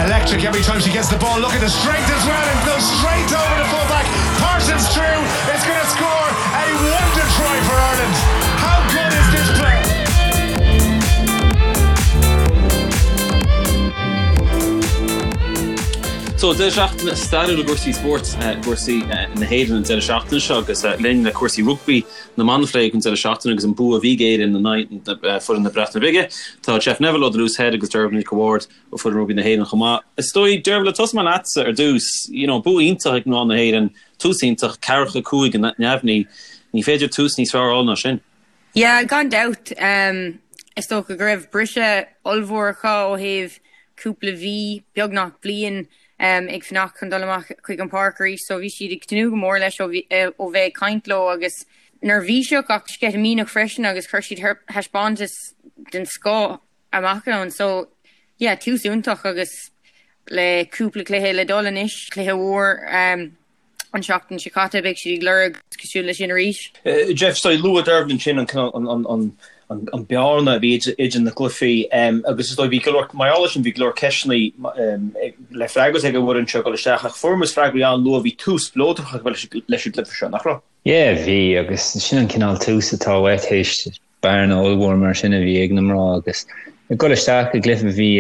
Electric every time she gets the ball. Look at the strength as well and goes straight over the fullback. Parsons through is going to score a wonder try for Ireland. How good is this player? So deireadh seachtaine stairiúil i gcúrsaí spóirt, i gcúrsaí na hÉireann an deireadh seachtaine seo agus linn le cúrsaí rugbaí na mban a phlé ag an deireadh seachtaine agus an bua a bhí ag Éirinn in aghaidh foireann na Breataine Bige. Tá Jeff Neville ó The Loose Head agus Dearbhla Nic a' Bhaird ó foireann rugbaí na hÉireann chomh maith. Is dóigh, Dearbhla, tosóidh mé leatsa ar dtús. You know, bua iontach ag mná na hÉireann, tús iontach, ceathracha 5 neamhní. Ní féidir tús níos fearr a fháil ná sin. Yeah, gan dabht. Is dócha go raibh briseadh ollmhór acu ó thaobh cúpla mhí, beagnach bliain, ag fanacht chun dul amach chuig an páirc arís so bhí siad ag tnúth go mór leis ó bheith ag caint leo agus neirbhíseach ach sceitimíneach freisin agus chuir siad thaispeántas den scoth amach ann. So yeah, tús iontach agus le cúpla cluiche le dul anois, cluiche mhór an seachtain seo caite, beidh siad ag lorg cosúil leis sin arís. Jeff, so luaigh Dearbhla ansin an an bearna a bhí idir na cluichí agus is dóigh bhí go leor, mar gheall air sin bhí go leor ceisteanna le freagairt ag an bhfoireann seo ag dul isteach ach fuair muid freagraí an-luath, bhí tús spleodrach leis an gcluiche seo, nach raibh? Yeah, bhí agus sin an cineál tús atá uait théis bearna ollmhór mar sin a bhí ag na mná agus ag dul isteach i gcluiche bhí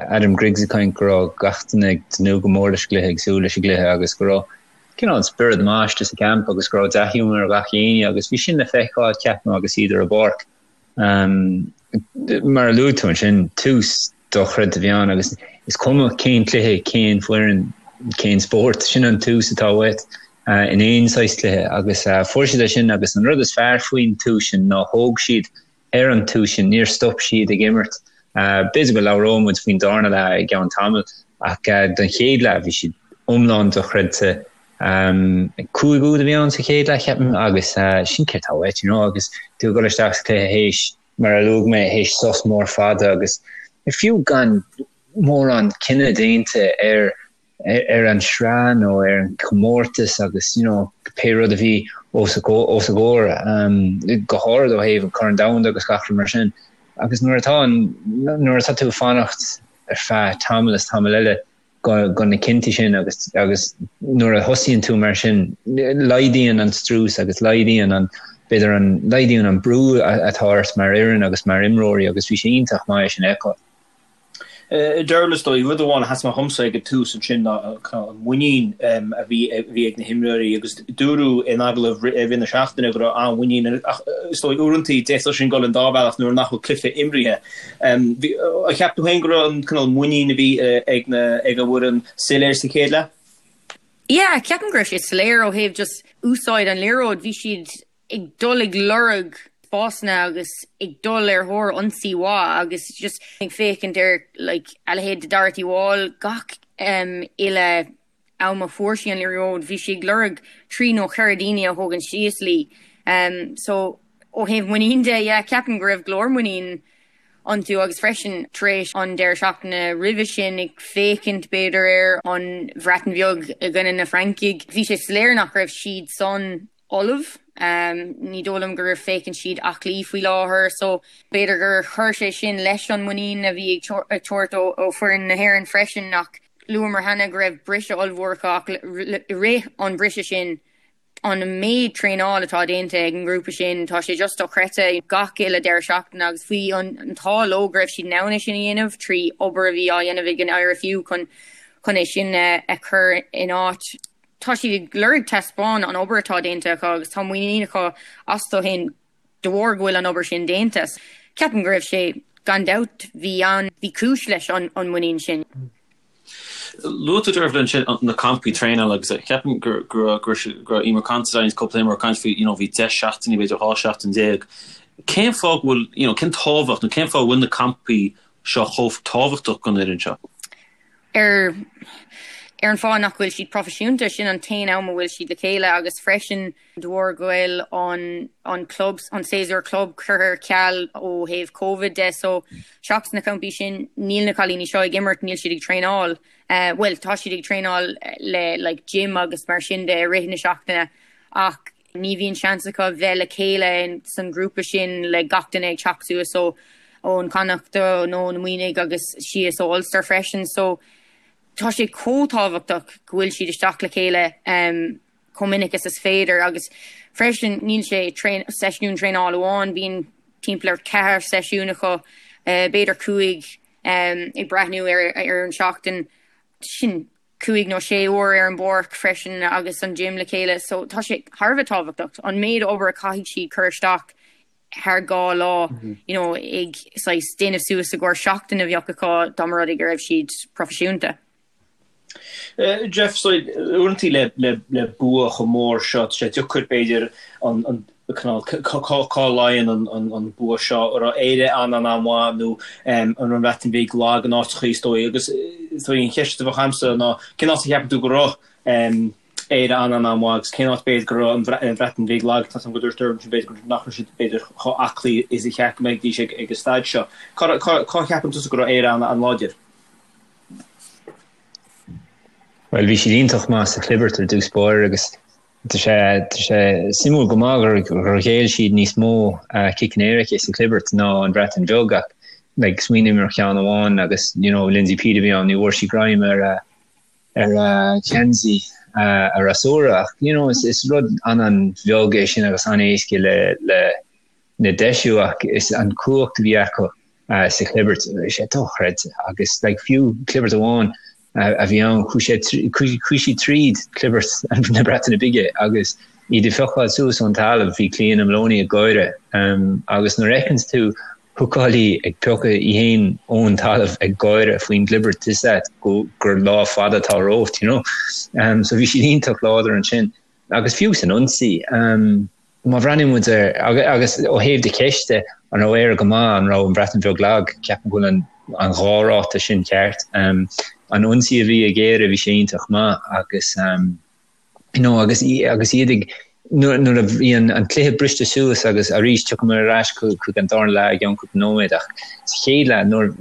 Adam Griggs ag caint go raibh gach duine ag tnúth go mór leis an gcluiche, ag súil leis an gcluiche agus go raibh cineál spiorad maith istigh sa gcamp agus go raibh dea-ghiúmar ar gach éinne agus bhí sin le feiceáil ceapaim agus iad ar an bpáirc. Mar a luaigh tú ansin, tús dochreidte a bhí ann agus is cuma cén cluiche, cén foireann, cén spórt, sin an tús atá uait in aon saghas cluiche agus fuair siad é sin agus an rud is fearr faoin tús sin ná thóg siad ar an tús sin, níor stop siad ag imirt. B'fhéidir go labhróidh muid faoin darna leath i gceann tamaill ach don chéad leath bhí siad iomlán dochreidte. 5 úd a bhí ann sa chéad leath ceapaim agus sin céard atá uait you know agus tú ag dul isteach sa chluiche théis mar a luaigh mé théis sos mór fada agus fiú gan mórán cinneadh déanta ar ar an sraith nó ar an chomórtas agus you know pé rud a bhí os a os a gcomhair go háirid ó thaobh an Corn Domhanda agus gach rud mar sin agus nuair atá an nuair atá tú ag fanacht ar feadh tamall is tamall eile go go na cinntí sin agus agus nuair a thosaíonn tú mar sin laghdaíonn an strus agus laghdaíonn an b'fhéidir an laghdaíonn an brú atá ort mar fhoireann agus mar imreoirí agus bhí sé iontach maith é sin a fheiceáil. Dearbhla, is dóigh, rud amháin a sheas amach dhomsa ag an tús ansin ná an muinín a bhí ag na himreoirí agus dúradh in agallamh i rith na seachtaine go raibh an-mhuinín ach is dóigh uaireanta d'fhéadfadh sin dul an dá bhealach nuair nach bhfuil cluiche imrithe. Ar cheap tú féin go raibh an cineál muinín a bhí ag na ag an bhfoireann soiléir sa chéad leath? Yeah, ceapaim go raibh sé soiléir ó thaobh just úsáid an liathróid. Bhí siad ag dul ag lorg spásanna agus ag dul ar thóir ionsaí mhaith agus just ag féachaint ar like a leithéid de Dorothy Wall gach um, uile am a fuair sí an liathróid bhí sí ag lorg trí nó cheithre daoine a thógaint síos léi. Um, so ó thaobh muinín de yeah, ceapaim go raibh go leor muinín iontu agus freisin tar éis an deireadh seachtaine roimhe sin ag féachaint b'fhéidir ar an Bhreatain Bheag i gcoinne na Francaigh bhí sé soiléir nach raibh siad san ullamh. Ní dóigh liom gur féachann siad aclaí faoi láthair so b'fhéidir gur chuir sé sin leis an muinín a bhí ag tabhairt ó foireann na hÉireann freisin ach luamar cheana go raibh briseadh ollmhór acu ach i rith an briseadh sin an méid traenáil atá déanta ag an ngrúpa sin tá sé just dochreidte gach uile deireadh seachtaine agus bhí an t-ádh leo go raibh siad in ann é sin a dhéanamh trí obair a bhí á dhéanamh ag an IRFU chun chun é sin a chur in áit. Tá siad ag lorg taispeáin an obair atá déanta acu agus tá muinín acu astu féin de bharr go bhfuil an obair sin déanta. Ceapaim go raibh sé, gan dabht, bhí an, bhí cúis leis an muinín sin. Luaigh tú Dearbhla ansin na campaí traenála agus ceapaim go raibh Eimear Considine agus cúpla imreoir ag caint faoi you know bhí 10 seachtainí b'fhéidir 12 seachtain. Cén fáth go bhfuil, you know, cén tábhacht nó cén fáth a bhfuil na campaí seo chomh tábhachtach don fhoireann seo? Ar. Ar an fáth nach bhfuil siad proifisiúnta, sin an t-aon am a bhfuil siad le chéile agus freisin de bharr go bhfuil an an club, an séasúr club curtha ar ceal ó thaobh Covid de so seachas na campaí sin níl na cailíní seo ag imirt, níl siad ag traenáil. Bhuel tá siad ag traenáil le like gym agus mar sin de i rith na seachtaine ach Ní bhíonn seans acu bheith le chéile san ghrúpa sin le gach duine ag teacht suas ó ón Connacht nó na Muimhnigh agus síos ó Ulster freisin so tá sé chomh tábhachtach go bhfuil siad isteach le chéile chomh minic is is féidir agus freisin níl sé seisiún traenála amháin, bíonn timpeall ar cheathair seisiún acu, b'fhéidir chúig ag breathnú ar an seachtain sin. 5 nó 6 uair ar an bpáirc freisin agus an gym le chéile so tá sé thar a bheith tábhachtach an méid obair a caithfidh siad cur isteach thar 2 lá you know ag saghas déanamh suas i gcomhair seachtain a bheadh acu dá mba rud é go raibh siad proifisiúnta. Jeff, so uaireanta le le le bua chomh mór seo tá sé deacair b'fhéidir an an Cá luíonn an bua seo? An raibh Éire an-an-an-mhaith nó an raibh an Bhreatain Bhig lag in áiteachaí is dóigh? Agus is dóigh an cheist a bheadh agamsa ná cén áit a cheapann tú go raibh Éire an-an-an-mhaith agus cén áit b'fhéidir go raibh an Bhreatain Bhig lag? Tá a fhios agam go dúirt Dermot b'fhéidir nach raibh siad b'fhéidir chomh aclaí is a cheart go mbeidís ag an staid seo. Cá cheapann tusa go raibh Éire an-an-láidir? Bhuel bhí siad iontach maith sa chlibirt ar dtús báire agus Tá sé tá sé suimiúil go maith gur gur ghéill siad níos mó ciceanna éirice sa chlibirt ná an Bhreatain Bheag ach like smaoiním ar cheann amháin agus you know Lindsay Peat a bhí ann ní bhfuair sí greim ar a ar a geansaí a fhreasúra ach you know is is rud an-an-bheag é sin agus an-éasca le le le deisiú ach is an cumhacht a bhí acu sa chlibirt bhí sé dochreidte agus like fiú clibirt amháin a bhí ann chuaigh sé chuaigh siad tríd clibirt na Breataine Bige agus iad ag piocáil suas ón talamh bhí Clíona Moloney ag gáire agus nuair a fheiceanns tú húcálaí ag piocadh í féin ón talamh ag gáire faoin gclibirt tá a fhios agat go gur lá fada atá romhat you know so bhí siad iontach láidir ansin agus fiú san ionsaí Má bhreathnaíonn muid ar, agus ó thaobh do cheiste, an raibh Éire go maith, an raibh an Bhreatain Bheag lag, ceapaim go bhfuil an an dhá ráta sin ceart. An ionsaí a bhí ag Éire, bhí sé iontach maith agus you know agus agus iad ag nuair nuair a bhí an an cluiche briste suas agus arís tiocfaidh muid ar ais chuig an darna leath i gceann cúpla nóiméad ach sa chéad leath nuair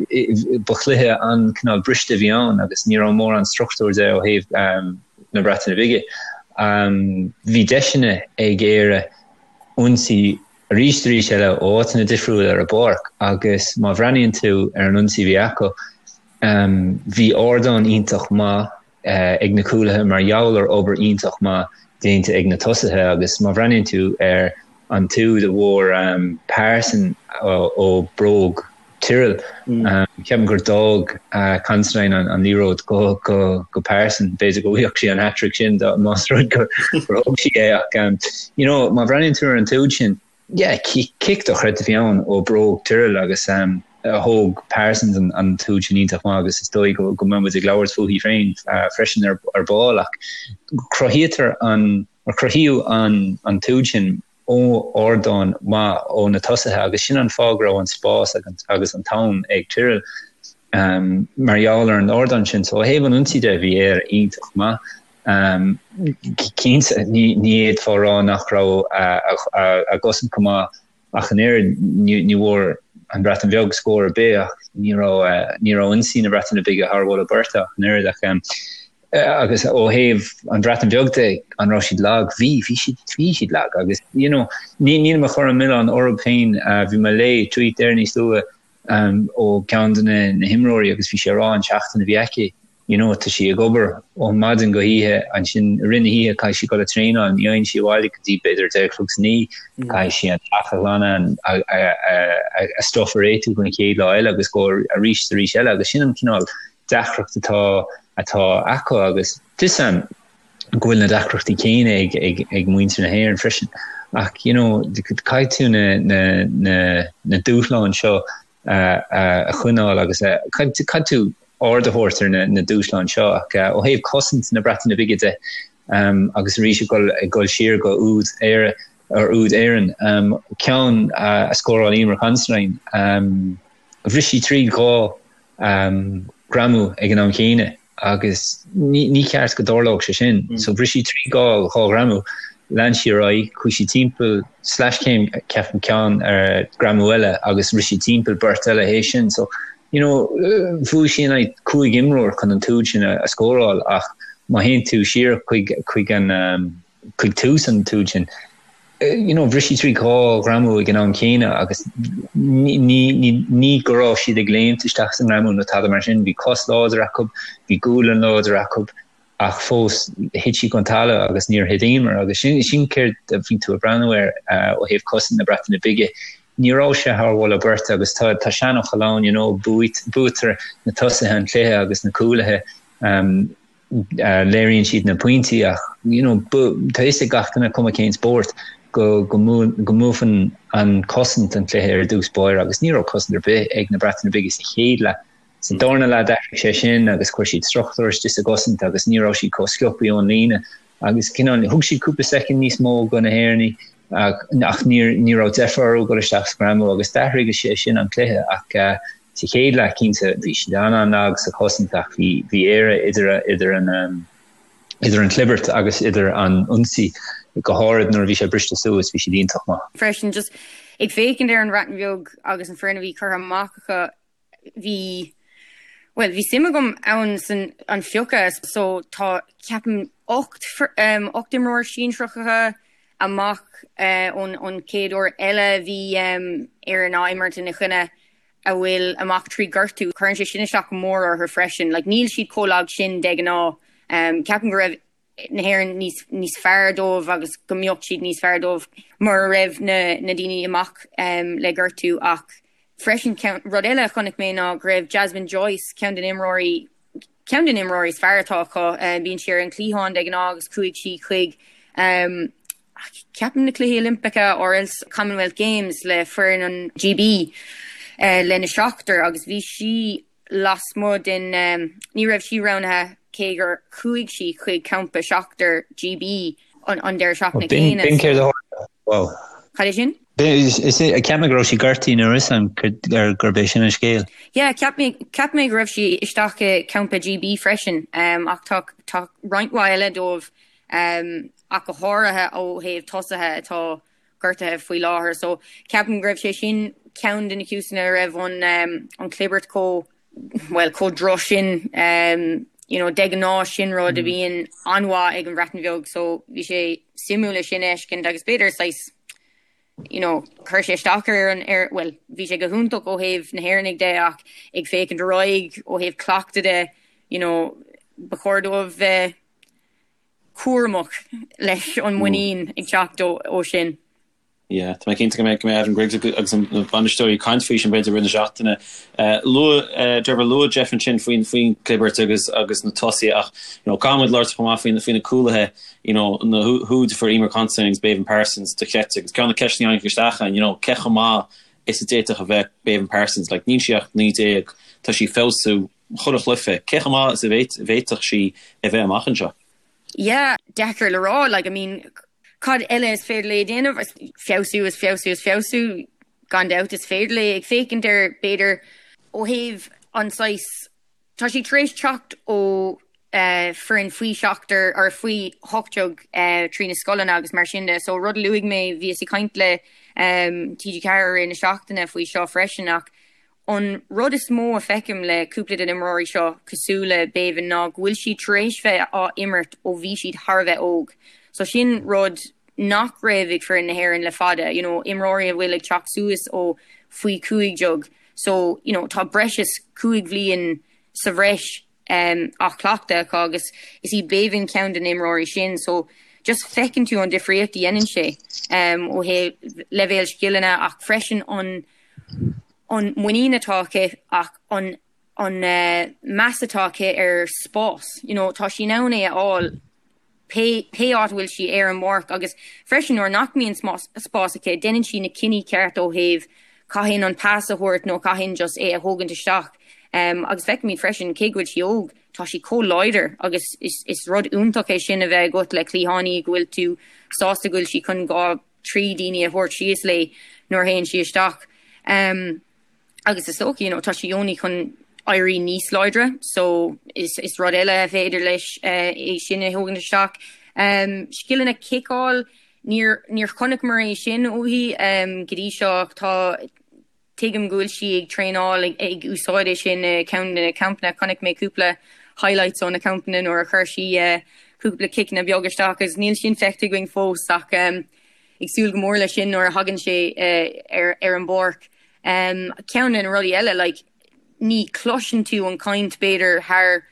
ba chluiche an cineál briste a bhí ann agus ní raibh mórán struchtúr de ó thaobh na Breataine Bige. Bhí deiseanna ag Éire ionsaí arís arís eile ó áiteanna difriúla ar an bpáirc agus má bhreathnaíonn tú ar an ionsaí a bhí acu, bhí ardán iontach maith ag na cúlaithe mar gheall ar obair iontach maith déanta ag na tosaithe agus má bhreathnaíonn tú ar an t-úd a bhfuair Parsons ó bróg Tyrrell. Ceapaim gur d'fhág Considine an liathróid go Parsons, b'fhéidir go bhfaigheadh sí an hat-trick sin más rud gur thóg sí é ach you know má bhreathnaíonn tú ar an t-úd sin, yeah, cic dochreidte a bhí ann ó bróg Tyrrell agus thóg Parsons an t-úd sin iontach maith agus is dóigh go mbeidh muid ag labhairt fúithi féin freisin ar ball ach cruthaítear an, cruthaíodh an t-úd sin ó ardán maith ó na tosaithe agus sin an fáth go raibh an spás agus an t-am ag Tyrrell mar gheall ar an ardán sin. So ó thaobh an ionsaí de bhí Éire iontach maith. Cinnte ní fhéadfá a rá nach raibh a gcosaint go maith ach an oiread, ní bhfuair an Bhreatain Bheag scór ar bith ach ní raibh ní raibh ionsaí na Breataine Bige thar mholadh beirte ach an oiread ach Agus ó thaobh an Bhreatain Bheag de, an raibh siad lag? Bhí, bhí siad, bhí siad lag agus you know ní, nílim ag cur an milleán orthu féin, bhí mé ag léamh tweet there níos luaithe ó ceann de na, na himreoirí agus bhí sé ag rá an seachtain a bhí aici, you know tá sí ag obair ó maidin go hoíche, ansin i rith na hoíche caithfidh sí dul ag traenáil, ní fhaigheann sí abhaile go dtí b'fhéidir 10 a chlog san oíche, caithfidh sí an teach a ghlanadh, a, a, a, a stuff a réitiú don chéad lá eile agus go arís arís eile agus sin an cineál deacracht atá atá acu agus tá a fhios agam go bhfuil na deacrachtaí céanna ag ag ag muintir na hÉireann freisin ach you know caithfidh tú na na na na dúshláin seo a a a choinneáil agus a caithfidh tú aird a thabhairt ar na na dúshláin seo ach ó thaobh cosaint na Breataine Bige de um, agus arís ag dul ag dul siar go úd Éire ar úd Éireann um, ceann a, a scóráil Eimear Considine um, bhris sí tríd 2 greamú ag an am chéanna. Agus ní ceart go dtarlódh sé sin. So bhris sí trí dhá ghreamú, lean sí ar aghaidh, chuaigh sí timpeall sleaschéim ceapaim ceann ar greamú eile agus rith sí timpeall beirt eile théis sin. So you know bhuaigh sí in aghaidh cúig imreoir chun an t-úd sin a scóráil ach má théann tú siar chuig chuig an chuig tús an t-úd sin, you know, bhris sí trí dhá ghreamú ag an am céanna agus ní, ní, ní go raibh siad ag léimt isteach sa ngreamú nó tada mar sin, bhí cos láidir acu, bhí gualainn láidir acu ach fós thit sí chun talamh agus níor thit Eimear agus sin, sin céard a bhí tú ag breathnú air ó thaobh cosaint na Breataine Bige. Ní raibh sé thar mholadh beirte agus tá, tá seanfhocal ann, you know, buaitear na tosaithe an cluiche agus na cúlaithe. Um, léiríonn siad na pointí ach you know tá fhios ag gach duine cuma cén spórt go go mbuafann an cosaint an cluiche ar dtús báire agus ní raibh cosaint ar bith ag na Breataine Bige sa chéad leath. Sa darna leath d'athraigh sé sin agus chuir siad struchtúr istigh sa gcosaint agus ní raibh siad chomh sciobtha ón líne agus cineál thug siad cúpla soicind níos mó go na hÉireannaigh ach ní ní raibh deifir orthu dul isteach sa ghreamú agus d'athraigh sé sin an cluiche ach Sa chéad leath, cinnte, bhí siad an-an-lag sa chosaint ach bhí bhí Éire idir idir an idir an chlibirt agus idir an ionsaí, go háirid nuair a bhí sé briste suas, bhí siad iontach maith. Freisin, just ag féachaint ar an Bhreatain Bheag agus an foireann a bhí curtha amach acu, bhí, bhuel, bhí suim agam ann san an phiocadh so tá, ceapaim, 8 8 imreoir sinsearach acu amach ón ón chéad uair eile a bhí Éirinn á imirt ina choinne. a bhfuil amach trí gortú. Cuireann sé sin isteach go mór orthu freisin. Like, níl siad chomh lag sin de ghnáth. Ceapaim go raibh na hÉireann níos, níos fearr dóibh agus go mbeadh siad níos fearr dóibh mura raibh na, na daoine amach le gortú. Ach freisin, ceann, rud eile a chonaic mé ná go raibh Jasmine Joyce, ceann de na imreoirí, ceann de na imreoirí is fearr atá acu, bíonn sí ar an chliathán de ghnáth agus chuaigh sí chuig Ceapaim na Cluichí Oilimpeacha or else Commonwealth Games le foireann an GB lena seachtar agus bhí sí lasmuigh den, ní raibh sí roghnaithe cé gur chuaigh sí chuig campa seachtar GB an deireadh seachtaine céanna. B'in céard a tharla. Wow. Cad é sin? Cheap mé go raibh sí gortaithe nuair is an gurb é sin an scéal. Yeah, cheap mé cheap mé go raibh sí isteach i campa GB freisin ach tá tá roinnt mhaith eile dóibh ach go háirithe ó thaobh tosaithe atá gortaithe faoi láthair. So ceapaim go raibh sé sin ceann de na cúiseanna a raibh an an chlibirt chomh, bhuel, chomh droch sin. You know, de ghnáth sin rud a bhíonn an-mhaith ag an Bhreatain Bheag so bhí sé suimiúil é sin a fheiscint agus b'fhéidir saghas, you know, chuir sé isteach ar an, ar, bhuel, bhí sé go hiontach ó thaobh na hÉireannaigh de ach ag féachaint ar aghaidh ó thaobh cleachtadh de, you know, ba chóir dóibh bheith cúramach leis an muinín ag teacht ó sin. Yeah, tá mé cinnte go mbeidh go mbeidh Adam Griggs agus na bainisteoirí ag caint faoi sin b'fhéidir i rith na seachtaine. Luaigh Trevor luaigh Jeff ansin faoin faoin clibirt agus agus na tosaithe ach you know caithfidh muid labhairt chomh maith faoin faoi na cúlaithe you know na húid a fuair Eimear Considine agus Béibhinn Parsons dochreidte agus ceann de na ceisteanna a tháinig isteach ann you know cé chomh maith is a d'fhéadfadh a bheith Béibhinn Parsons like níl sí ach 19 tá sí ag feabhsú chuile chluiche, cé chomh maith is a bhféadfadh sí a bheith amach anseo? Yeah, deacair le rá, like, I mean, cad eile is féidir léi a dhéanamh? Feabhsú is feabhsú is feabhsú, gan dabht is féidir léi. Ag féachaint ar, b'fhéidir, ó thaobh an saghas, tá sí tar éis teacht ó foireann faoi seachtar or faoi 18 trí na scoileanna agus mar sin de, so rud a luaigh mé, bhíos ag caint le TG4 i rith na seachtaine faoi seo freisin ach An rud is mó a feicim le cúpla de na imreoirí seo cosúil le Béibhinn ná go bhfuil siad tar éis bheith á imirt ó bhí siad thar a bheith óg. So sin rud nach raibh ag foireann na hÉireann le fada, you know, imreoirí a bhfuil ag teacht suas ó faoi 15. So, you know, tá breis is cúig bhliain sa bhreis á chleachtadh acu agus is í Béibhinn ceann de na imreoirí sin. So just feiceann tú an difríocht a dhéanann sé ó thaobh leibhéal scileanna ach freisin an an muinín atá aici ach an an meas atá aici ar spás. You know, tá sí in ann é a fháil pé pé áit a bhfuil sí ar an bpáirc agus freisin nuair nach mbíonn spás aici, déanann sí na cinní ceart ó thaobh cathain an pas a thabhairt nó cathain just é a thógaint isteach. Agus feicimid freisin, cé go bhfuil sí óg, tá sí chomh láidir agus is is rud iontach é sin a bheith agat le cliathánaí go bhfuil tú sásta go bhfuil sí chun dhá, trí daoine a thabhairt síos léi nuair a théann sí isteach. Agus is dócha, you know, tá sí only chun. éirí níos láidre so is is rud eile a féidir leis é sin a thógaint isteach. Scileanna ciceáil, níor níor chonaiceamar é sin uaithi go dtí seo ach tá tuigim go bhfuil sí ag traenáil ag ag úsáid é sin i ceann de na campanna. Chonaic mé cúpla highlights ó na campanna nuair a chuir sí cúpla ciceanna beag isteach agus níl sin feicthe againn fós ach ag súil go mór leis sin nuair a thagann sé ar ar an bpáirc. Ceann de na rudaí eile like ní chloiseann tú an chaint b'fhéidir thar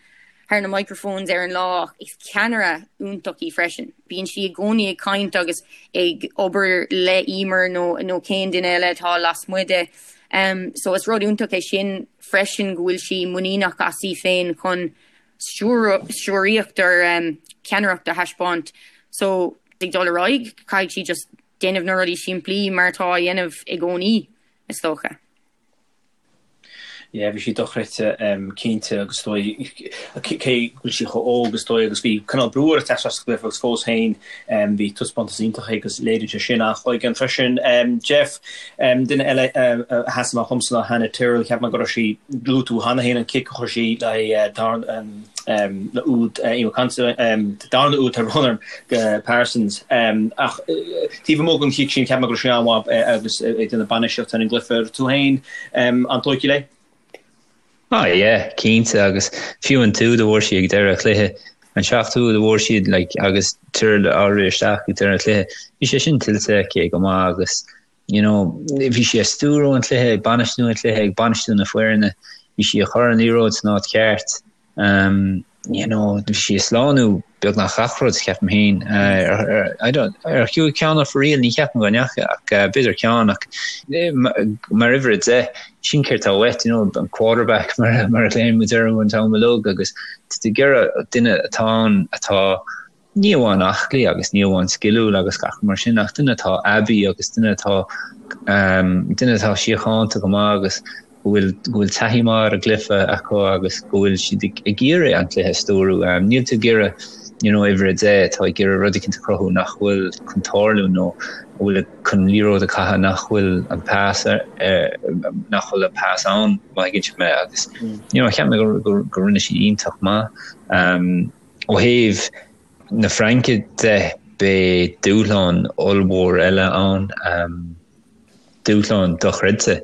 thar na microphones ar an lá ach is ceannaire iontach í freisin. Bíonn sí i gcónaí ag caint agus ag obair le Eimear nó nó cén duine eile atá lasmuigh de. So is rud iontach é sin freisin go bhfuil sí muiníneach as í féin chun stiúraíocht or ceannaireacht a thaispeáint. So ag dul ar aghaidh caithfidh sí just déanamh na rudaí simplí mar atá á dhéanamh i gcónaí is dócha. Yeah, bhí sí dochreidte cinnte agus is dóigh cé go bhfuil sí chomh óg is dóigh agus bhí cineál brú uirthi teacht isteach sa gcluiche agus fós féin bhí taispeántas iontach aici agus léiríonn sé sin an-chloigeann freisin. Jeff, duine eile a sheas amach dhomsa ná Hannah Tyrrell, cheap mé go raibh sí, luaigh tú cheana féin an cic a chuir sí le le úd Eimear Considine, darna úd tá brón orm, go Parsons. Ach taobh amuigh den chic sin, cheap mé go raibh sí an-mhaith agus ag déanamh bainistíocht ar an gcluiche. Tú féin, an-tógtha léi? Ah yeah, cinnte agus fiú an t-úd a bhfuair sí ag deireadh an chluiche, an seachtú úd a bhfuair siad like agus Tyrrell á rith isteach ag deireadh an chluiche, bhí sé sin tuillte aici go maith agus you know, bhí sí ag stiúrú an chluiche, ag bainistiú an chluiche, ag bainistiú na foirne, bhí sí ag cur an liathróid san áit cheart, um, you know, bhí sí ag slánú beagnach gach rud, ceapaim féin. Uh, ar, ar, I don't, ar chuaigh ceann off a riail, ní cheapaim go ndeacha, ach uh, b'fhéidir ceann, ach eh, mar uimhir 10, sin céard atá uait, you know, an quarterback mar, mar a ghlaonn muid orthu an t-am uilig, agus tá tú ag iarraidh duine atá ann atá ní amháin aclaí agus ní amháin sciliúil agus gach rud mar sin ach duine atá aibí agus duine atá duine atá síochánta go maith agus go bhfuil go bhfuil taithí maith ar an gcluiche acu agus go bhfuil siad ag iarraidh an cluiche a stiúrú. Níl tú ag iarraidh you know uimhir 10 atá ag iarraidh rud eicínt a chruthú nach bhfuil chun tarlú nó a bhfuil chun liathróid a chaitheamh nach bhfuil an pas nach bhfuil an pas ann má thuigeann sibh mé agus you know cheap mé go go go rinne sí iontach maith. Um, Ó thaobh na Fraince de, beidh dúshlán ollmhór eile ann, dúshlán dochreidte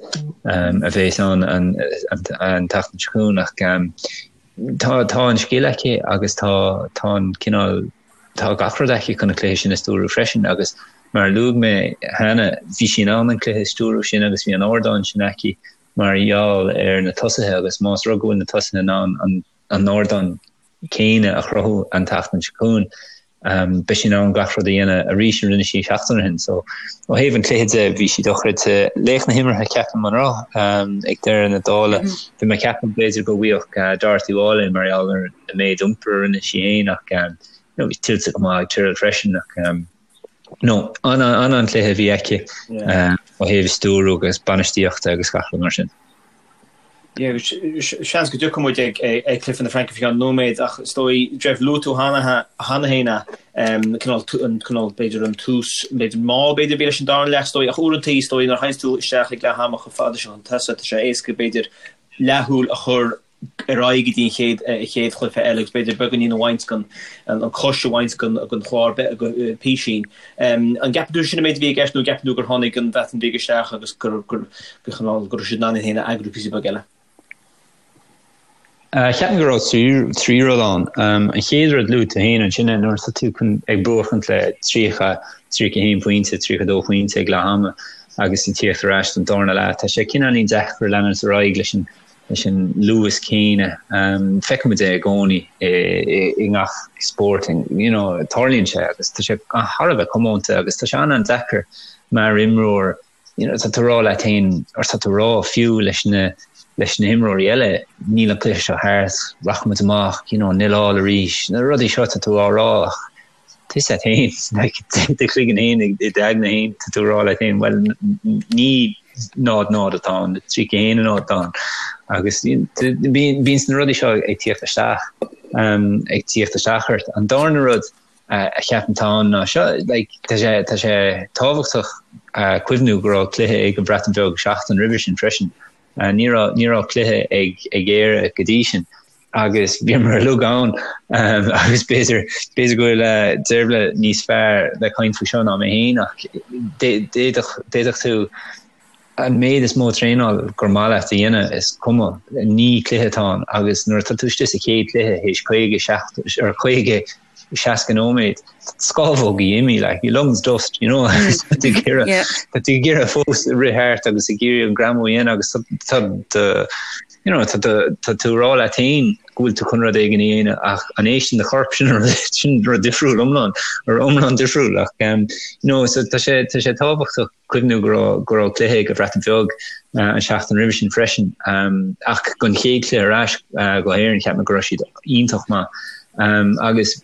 a bheas ann an tseachtain seo chugainn ach tá tá an scil aici agus tá tá an cineál tá gach rud aici chun an cluiche sin a stiúrú freisin agus mar a luaigh mé cheana, bhí sí in ann an cluiche a stiúrú sin agus bhí an ardán sin aici mar gheall ar na tosaithe agus más rud go bhfuil na tosaithe in ann an an ardán céanna a chruthú an tseachtain seo chugainn. Beidh sí in ann gach rud a dhéanamh arís a rinne sí seachtain ó shin. So ó thaobh an chluiche de bhí sí dochreidte. Laoch na himeartha ceapaim an raibh ag deireadh na dála. Bhí mé ag ceapadh b'fhéidir go bhfaigheadh Dorothy Wall é mar gheall ar an méid iompair a rinne sí féin ach you know bhí tuillte go maith ag Tyrrell freisin ach no an-an-chluiche a bhí aici ó thaobh stiúrú agus bainistíochta agus gach rud mar sin. Seans go dtiocfaidh muid ag cluiche na Fraince faoi cheann nóiméad ach is dóigh, Jeff, luaigh tú cheana féin cineál, an cineál, b'fhéidir an tús, b'fhéidir mall b'fhéidir a bhí leis an darna leath is dóigh ach uaireanta is dóigh nuair a théanns tú isteach ag leath ama chomh fada seo chun tosaigh tá sé éasca b'fhéidir leathshúil a chur ar aghaidh go dtí an chéad chéad chluiche eile agus b'fhéidir beagáinín a bhaint den an cois a bhaint den den chlár písín. An gceapann tú sin an méid a bhí i gceist nó an gceapann tú gur tháinig an Bhreatain Bheag isteach agus gur gur gur chineál go raibh siad in ann iad féin a eagrú píosa beag eile? Cheapfainn go raibh 3 rud ann. An chéad rud luaigh tú féin ansin nuair atá tú chun ag buachaint le 30, 31 pointe, 32 pointe ag leath ama agus ag tíocht ar ais don darna leath, tá sé cineáilín deacair leanúint ar aghaidh leis an leis an luas céanna. Feicimid é i gcónaí i ngach spórt, you know, tarlaíonn sé agus tá sé thar a bheith comónta agus tá sé an-an-deacair mar imreoir, you know, tá tú ag rá leat féin, or tá tú ag rá fiú leis na leis na himreoirí eile, níl an cluiche seo thart, rachaimid amach, you know, nil all arís, na rudaí seo tá tú á rá ach tá a fhios agat féin, like, i do chloigeann féin, i d'aigne féin, tá tú ag rá leat féin, bhuel, ní 0-0 atá ann, 31-0 atá ann. Agus bíonn na rudaí seo ag tíocht isteach, ag tíocht isteach ort. An darna rud a cheapaim atá ann ná seo, like, tá sé, tá sé tábhachtach cuimhniú go raibh cluiche ag an Bhreatain Bheag seachtain roimhe sin freisin. Ní raibh ní raibh cluiche ag ag Éire go dtí sin agus bhíomar uilig ann agus b'fhéidir b'fhéidir go bhfuil Deirbhile níos fearr le caint faoi seo ná mé féin ach d'fhéadfadh d'fhéadfadh tú an méid is mó traenáil gur maith leat a dhéanamh, is cuma, ní cluiche atá ann agus nuair atá tú istigh sa chéad chluiche théis 50, 70 or 50, 60 nóiméad, scámhógaí imithe, like, your lungs dust, you know, tá tú ag iarraidh, tá tú ag iarraidh fós rith thart agus ag iarraidh an greamú a dhéanamh agus tá do, you know, tá tá tú ag rá leat féin go bhfuil tú chun rud éigin a dhéanamh ach an éisteann do chorp sin sin rud difriúil iomlán, or iomlán difriúil ach, um, you know, so tá sé, tá sé tábhachtach cuimhniú go raibh go raibh cluiche ag an Bhreatain Bheag an seachtain roimhe sin freisin. Ach don chéad chluiche ar ais go hÉirinn cheap mé go raibh siad iontach maith. Agus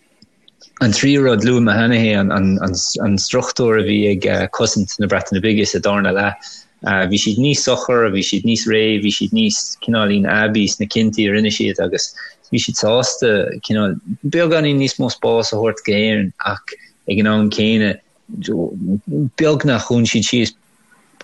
an tríú rud, luaigh mé cheana é, an struchtúr a bhí ag cosaint na Breataine Bige sa darna leath. Bhí siad níos socair, bhí siad níos réidh, bhí siad níos cineáilín aibí sna cinntí a rinne siad agus bhí siad sásta cineál beagáinín níos mó spáis a thabhairt go hÉirinn ach ag an am céanna beagnach dhún siad síos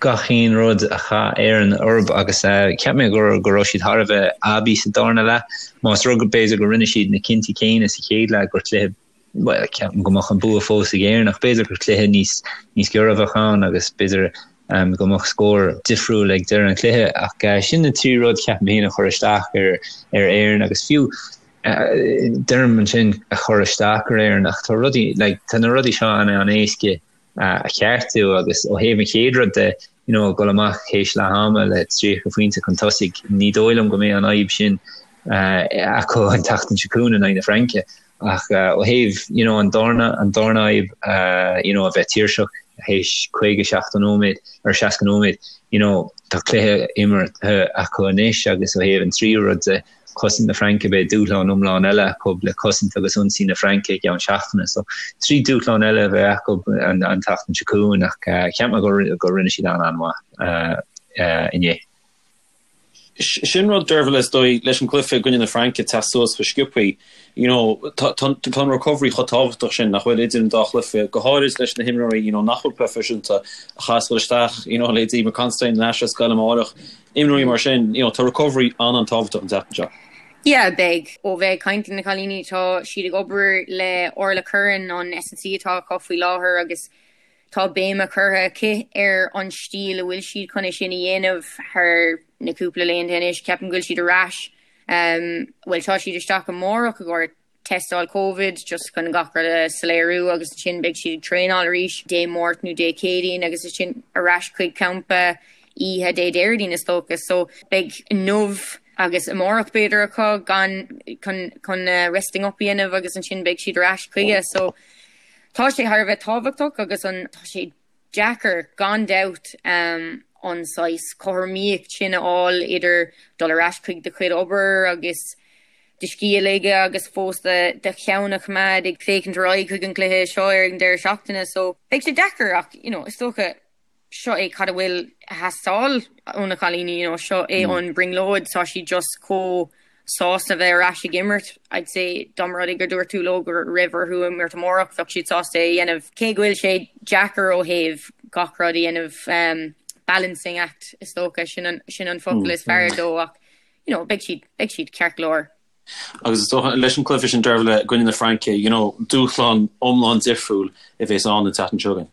gach aon rud a chaith Éirinn orthu agus cheap mé go go raibh siad thar a bheith aibí sa darna leath. Más rud b'fhéidir go rinne siad na cinntí céanna sa chéad leath gur cluiche bhuel ceapaim go mbeadh an bua fós ag Éirinn ach b'fhéidir gur cluiche níos níos giorra a bheadh ann agus b'fhéidir go mbeadh scór difriúil ag deireadh an chluiche ach sin na trí rud cheapaim féin a chuir isteach ar ar Éirinn agus fiú Deirim ansin a chur isteach ar Éirinn ach tá rudaí, like, tá na rudaí seo an-an-éasca a cheartú agus ó thaobh an chéad rud de, you know, dul amach théis leath ama le 30 phointe chun tosaigh, ní dóigh liom go mbeidh an fhadhb sin acu an tseachtain seo chugainn in aghaidh na Fraince. Ach ó thaobh, you know, an darna, an darna fhadhb, you know, a bheith tuirseach théis 50, 70 nóiméad or 60 nóiméad, you know, tá cluiche imeartha acu anois agus ó thaobh an tríú rud de, cosaint na Fraince, beidh dúshlán iomlán eile acu le cosaint agus ionsaí na Fraince i gceann seachtaine. So, trí dúshlán eile a bheidh acu an tseachtain seo chugainn ach cheap mé go rinne siad an-an-mhaith inné. Sin rud, Dervla, is dóigh, leis an gcluiche i gcoinne na Fraince teacht suas chomh sciobthaí. You know, tá an recovery chomh tábhachtach sin nach bhfuil idir an dá chluiche, go háirid leis na himreoirí, you know, nach bhfuil proifisiúnta, a chaithfeas dul isteach, you know, leithéidí Eimear Considine ar ais ar scoil amárach. Imreoirí mar sin, you know, tá recovery an-an-tábhachtach an tseachtain seo. Yeah, beidh. Ó bheith ag caint le na cailíní, tá siad ag obair le Orla Curran, an S&C atá acu faoi láthair agus tá béim curtha aici ar an stíl a bhfuil siad chun é sin a dhéanamh thar na cúpla laethanta anois. Ceapaim go bhfuil siad ar ais, bhuel tá siad isteach amárach i gcomhair tástáil Covid just chun gach rud a soiléiriú agus ansin beidh siad ag traenáil arís Dé Máirt nó Dé Céadaoin agus ansin ar ais chuig campa oíche Dé Déardaoin is dócha. So beidh inniu agus amárach b'fhéidir acu gan chun chun resting up a dhéanamh agus ansin beidh siad ar ais chuige. So tá sé thar a bheith tábhachtach agus an tá sé deacair, gan dabht, an saghas cothromaíocht sin a fháil idir dul ar ais chuig do chuid obair agus do scíth a ligeadh agus fós do cheann a choimeád ag féachaint ar aghaidh chuig an gcluiche seo ar an deireadh seachtaine. So, beidh sé deacair ach, you know, is dócha, seo é cad a bhfuil ag teastáil ó na cailíní, you know, seo é an brionglóid, tá siad just chomh sásta bheith ar ais ag imirt. I'd say dá mba rud é gur dúirt tú leo go raibh orthu imirt amárach, bheadh siad sásta é a dhéanamh. Cé go bhfuil sé deacair ó thaobh gach rud a dhéanamh, balancing act is dócha, sin an, sin an focal is fearr dó ach, you know, beidh siad, beidh siad ceart go leor. Agus is dócha leis an cluiche sin Dervla i gcoinne na Fraince, you know, dúshlán iomlán difriúil a bheas ann an tseachtain seo chugainn.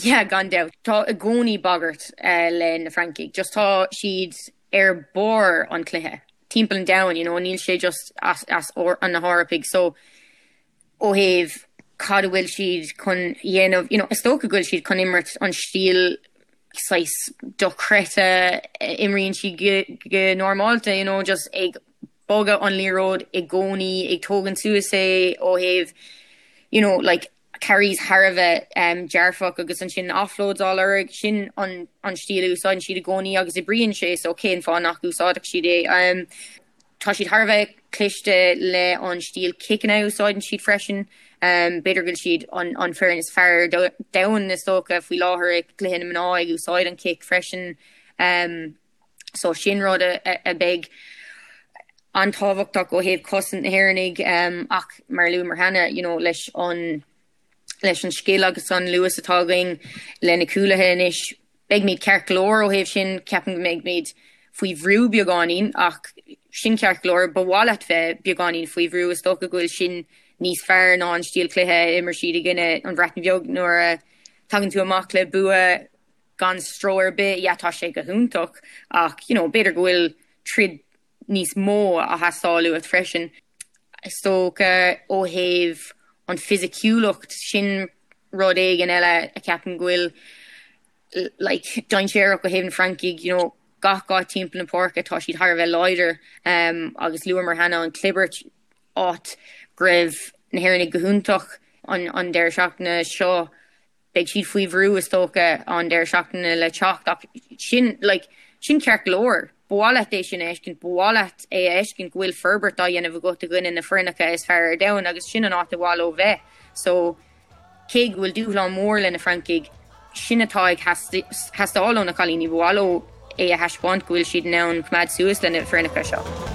Yeah, gan dabht. Tá i gcónaí bagairt le na Francaigh. Just tá siad ar barr an chluiche timpeall an domhain, you know, níl sé just as, as na hEorpaigh. So, ó thaobh cad a bhfuil siad chun dhéanamh, you know, is dócha go bhfuil siad chun imirt an stíl saghas dochreidte a imríonn siad go, go normálta, you know, just ag bogadh an liathróid i gcónaí, ag tógaint suas é ó thaobh, you know, like, carries thar a bheith dearfach agus ansin offloads á lorg, sin an stíl a úsáideann siad i gcónaí agus oibríonn sé so cén fáth nach úsáidfeadh siad é? Tá siad thar a bheith cliste le an stíl ciceanna a úsáideann siad freisin. B'fhéidir go bhfuil siad an foireann is fearr ar domhan is dócha faoi láthair ag cluiche na mná ag úsáid an cic freisin. So sin rud a bheidh an-tábhachtach ó thaobh cosaint na hÉireannaigh ach mar a luamar cheana, you know, leis an leis an scil agus an luas atá againn le na cúlaithe anois, beimid ceart go leor ó thaobh sin, ceapaim go mbeimid. faoi bhrú beagáinín ach sin ceart go leor, ba mhaith leat bheith beagáinín faoi bhrú, is dócha go bhfuil sin níos fearr ná an stíl cluiche a imir siad i gcoinne an Bhreatain Bheag nuair a tagann tú amach le bua gan stró ar bith, yeah tá sé go hiontach ach you know b'fhéidir go bhfuil troid níos mó á theastáil uait freisin. Is dócha ó thaobh an fisiciúlacht sin rud éigin eile a ceapaim go bhfuil like dainséarach ó thaobh na Francaigh, you know, gach áit timpeall na páirce tá siad thar a bheith láidir um, agus luamar cheana an clibirt áit go raibh na hÉireannaigh go hiontach an, an deireadh seachtaine seo beidh siad faoi bhrú is dócha an deireadh seachtaine le teacht ach sin like, sin ceart go leor. Ba mhaith leat é sin a fheiscint, ba mhaith leat é a fheiscint go bhfuil forbairt á dhéanamh agat i gcoinne na foirneacha is fearr ar domhan agus sin an áit ar mhaith leo bheith. So Cé go bhfuil dúshlán mór le na Francaigh, sin atá ag theastáil ó na cailíní, ba mhaith leo é a thaispeáint go bhfuil siad in ann coimeád suas le na foirneacha seo.